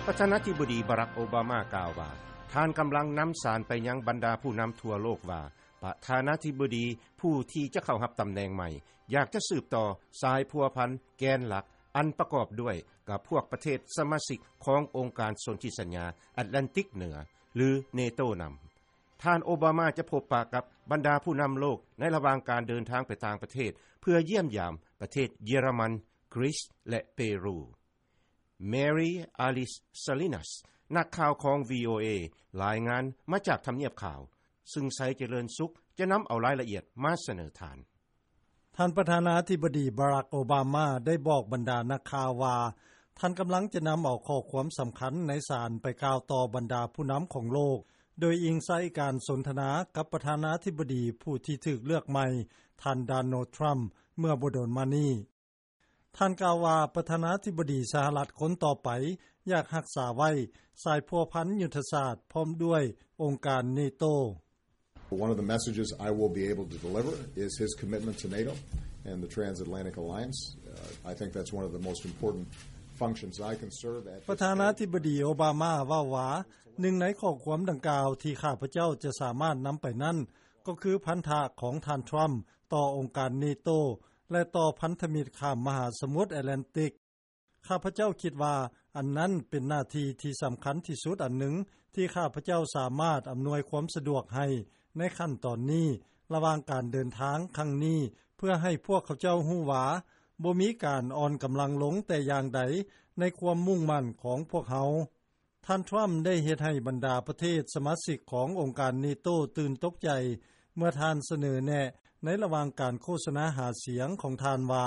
ປະທານາທິບໍດີ ບາຣັກ ໂອບາມາ ກ່າວວ່າ ທ່ານກຳລັງນຳສານໄປຍັງບັນດາຜູ້ນຳທົ່ວໂລກວ່າ ປະທານາທິບໍດີຜູ້ທີ່ຈະເຂົ້າຮັບຕຳແໜ່ງໃໝ່ ຢາກຈະສືບຕໍ່ສາຍພົວພັນແກນຫຼັກ ອັນປະກອບດ້ວຍກັບພວກປະເທດສະມາຊິກຂອງອົງການສົນທິສັນຍາແອັດແລນຕິກເໜືອ ຫຼື ເນໂຕ ນຳ. ທ່ານໂອບາມາຈະພົບປະກັບບັນດາຜູ້ນຳໂລກໃນລະຫວ່າງການເດີນທາງໄປຕ່າງປະເທດ ເພື່ອຢ້ຽມຢາມປະເທດເຢຍລະມັນ, ກຣີສ ແລະ ເປຣູ. Mary Alice Salinas ນັກຂ່າວຂອງ VOA ລາຍງານມາຈາກທຳນຽບຂາວ, ຊຶ່ງໄຊຈະເລີນສຸກຈະນຳເອົາລາຍລະອຽດມາສະເໜີທ່ານ. ທ່ານປະທານາທິບໍດີ ບາຣັກ ໂອບາມາ ໄດ້ບອກບັນດານັກຂ່າວວ່າ ທ່ານກຳລັງຈະນຳເອົາຂໍ້ຄວາມສຳຄັນໃນສານໄປກ່າວຕໍ່ບັນດາຜູ້ນຳຂອງໂລກ, ໂດຍອີງໃສ່ການສົນທະນາກັບປະທານາທິບໍດີຜູ້ທີ່ຖືກເລືອກໃໝ່, ທ່ານ ໂດນັລ ທຣຳ ເມື່ອບໍ່ດົນມານີ້. ທ່ານກ່າວວ່າ ປະທານາທິບໍດີສະຫະລັດຄົນຕໍ່ໄປຢາກຮັກສາໄວ້ສາຍພົວພັນຍຸດທະສາດພ້ອມດ້ວຍອົງການເນໂຕ. One of the messages I will be able to deliver is his commitment to NATO and the transatlantic alliance. Uh, I think that's one of the most important functions I can serve at this stage. ປະທານາທິບໍດີໂອບາມາເວົ້າວ່າ ໜຶ່ງໃນຂໍ້ຄວາມດັ່ງກ່າວທີ່ຂ້າພະເຈົ້າຈະສາມາດນຳໄປນັ້ນ ກໍຄືພັນທະຂອງທ່ານທຣຳຕໍ່ອົງການເນໂຕ ແລະ ຕໍ່ພັນທະມິດຂ້າມມະຫາສະໝຸດແອັດແລນຕິກ. ຂ້າພະເຈົ້າຄິດວ່າອັນນັ້ນເປັນໜ້າທີ່ທີ່ສຳຄັນທີ່ສຸດອັນໜຶ່ງ ທີ່ຂ້າພະເຈົ້າສາມາດອຳນວຍຄວາມສະດວກໃຫ້ໃນຂັ້ນຕອນນີ້ ລະຫວ່າງການເດີນທາງຄັ້ງນີ້ ເພື່ອໃຫ້ພວກເຂົາເຈົ້າຮູ້ວ່າ ບໍ່ມີການອ່ອນກຳລັງລົງແຕ່ຢ່າງໃດໃນຄວາມມຸ່ງໝັ້ນຂອງພວກເຮົາ. ທ່ານທຣຳໄດ້ເຮັດໃຫ້ບັນດາປະເທດສະມາຊິກຂອງອົງການເນໂຕຕື່ນຕົກໃຈ ເມື່ອທ່ານສະເໜີແນະໃນລະຫວ່າງການໂຄສະນາຫາສຽງຂອງທ່ານວ່າ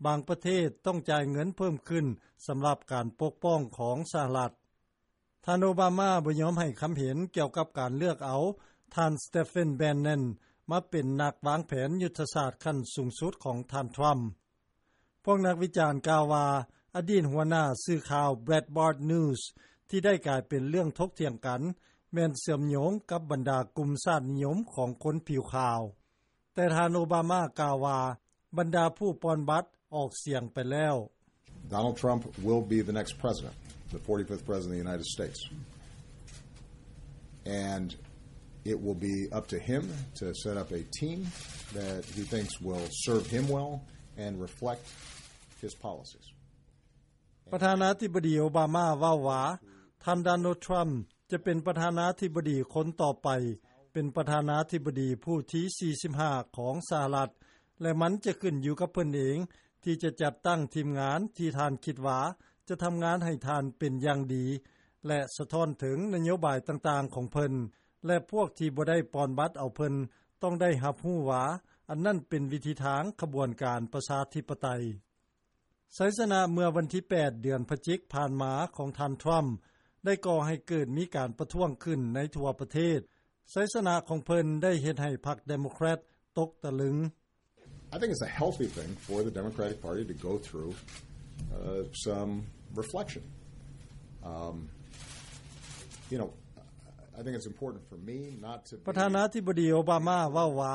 ບາງປະເທດຕ້ອງຈ່າຍເງິນເພີ່ມຂຶ້ນສຳລັບການປົກປ້ອງຂອງສະຫະລັດ. ທ່ານໂອບາມາບໍ່ຍອມໃຫ້ຄຳເຫັນກ່ຽວກັບການເລືອກເອົາທ່ານ Stephen Bannon ມາເປັນນັກວາງແຜນຍຸດທະສາດຂັ້ນສູງສຸດຂອງທ່ານທຣຳ. ພວກນັກວິຈານກ່າວວ່າ ອະດີດຫົວໜ້າສື່ຂ່າວ Breitbart News ທີ່ໄດ້ກາຍເປັນເລື່ອງຖົກຖຽງກັນ ແມ່ນເຊື່ອມໂຍງກັບບັນດາກຸ່ມຊາດນິຍົມຂອງຄົນຜິວຂາວ. ແຕ່ທ່ານໂອບາມາກ່າວວ່າ ບັນດາຜູ້ປ່ອນບັດອອກສຽງໄປແລ້ວ. Donald Trump will be the next president, the forty-fifth president of the United States. And it will be up to him to set up a team that he thinks will serve him well and reflect his policies. ປະທານາທິບໍດີໂອບາມາເວົ້າວ່າ ທ່ານ ໂດນັລ ທຣຳ ຈະເປັນປະທານາທິບໍດີຄົນຕໍ່ໄປ, ເປັນປະທານາທິບໍດີຜູ້ທີສີ່ສິບຫ້າຂອງສະຫະລັດ ແລະ ມັນຈະຂຶ້ນຢູ່ກັບເພິ່ນເອງ ທີ່ຈະຈັດຕັ້ງທີມງານທີ່ທ່ານຄິດວ່າຈະທຳງານໃຫ້ທ່ານເປັນຢ່າງດີ ແລະ ສະທ້ອນເຖິງນະໂຍບາຍຕ່າງໆຂອງເພິ່ນ ແລະ ພວກທີ່ບໍ່ໄດ້ປ່ອນບັດເອົາເພິ່ນ ຕ້ອງໄດ້ຮັບຮູ້ວ່າ ອັນນັ້ນເປັນວິທີທາງຂະບວນການປະຊາທິປະໄຕ. ໄຊຊະນະເມື່ອວັນທີແປດ ເດືອນພະຈິກຜ່ານມາຂອງທ່ານທຣຳ ໄດ້ກໍ່ໃຫ້ເກີດມີການປະທ້ວງຂຶ້ນໃນທົ່ວປະເທດ. ໄຊຊະນະຂອງເພິ່ນໄດ້ເຮັດໃຫ້ພັກເດໂມແຄຣດຕົກຕະລຶງ. I think it's a healthy thing for the Democratic Party to go through, uh, some reflection. Um, you know, I think it's important for me not to be ປະທານາທິບໍດີໂອບາມາເວົ້າວ່າ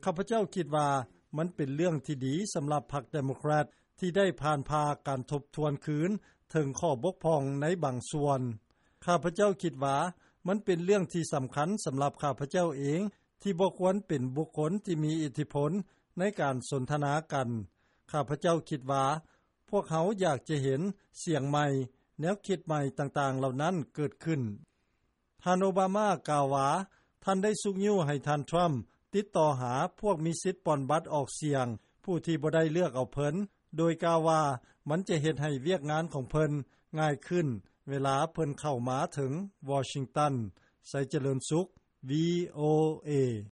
ຂ້າພະເຈົ້າຄິດວ່າມັນເປັນເລື່ອງທີ່ດີສຳລັບພັກເດໂມແຄຣດ ທີ່ໄດ້ຜ່ານຜ່າການທົບທວນຄືນເຖິງຂໍ້ບົກຜ່ອງໃນບາງສ່ວນ. ຂ້າພະເຈົ້າຄິດວ່າມັນເປັນເລື່ອງທີ່ສຳຄັນສຳລັບຂ້າພະເຈົ້າເອງ ທີ່ບໍ່ຄວນເປັນບຸກຄົນທີ່ມີອິດທິພົນໃນການສົນທະນາກັນ. ຂ້າພະເຈົ້າຄິດວ່າພວກເຮົາຢາກຈະເຫັນສຽງໃໝ່, ແນວຄິດໃໝ່ຕ່າງໆເຫຼົ່ານັ້ນເກີດຂຶ້ນ. ທ່ານໂອບາມາກ່າວວ່າ ທ່ານໄດ້ຊຸກຍູ້ໃຫ້ທ່ານທຣຳຕິດຕໍ່ຫາພວກມີສິດປ່ອນບັດອອກສຽງ ຜູ້ທີ່ບໍ່ໄດ້ເລືອກເອົາເພິ່ນ ໂດຍກ່າວວ່າມັນຈະເຮັດໃຫ້ວຽກງານຂອງເພິ່ນງ່າຍຂຶ້ນເວລາເພິ່ນເຂົ້າມາເຖິງວໍຊິງຕັນ. ໄຊຈະເລີນສຸກ ວີໂອເອ.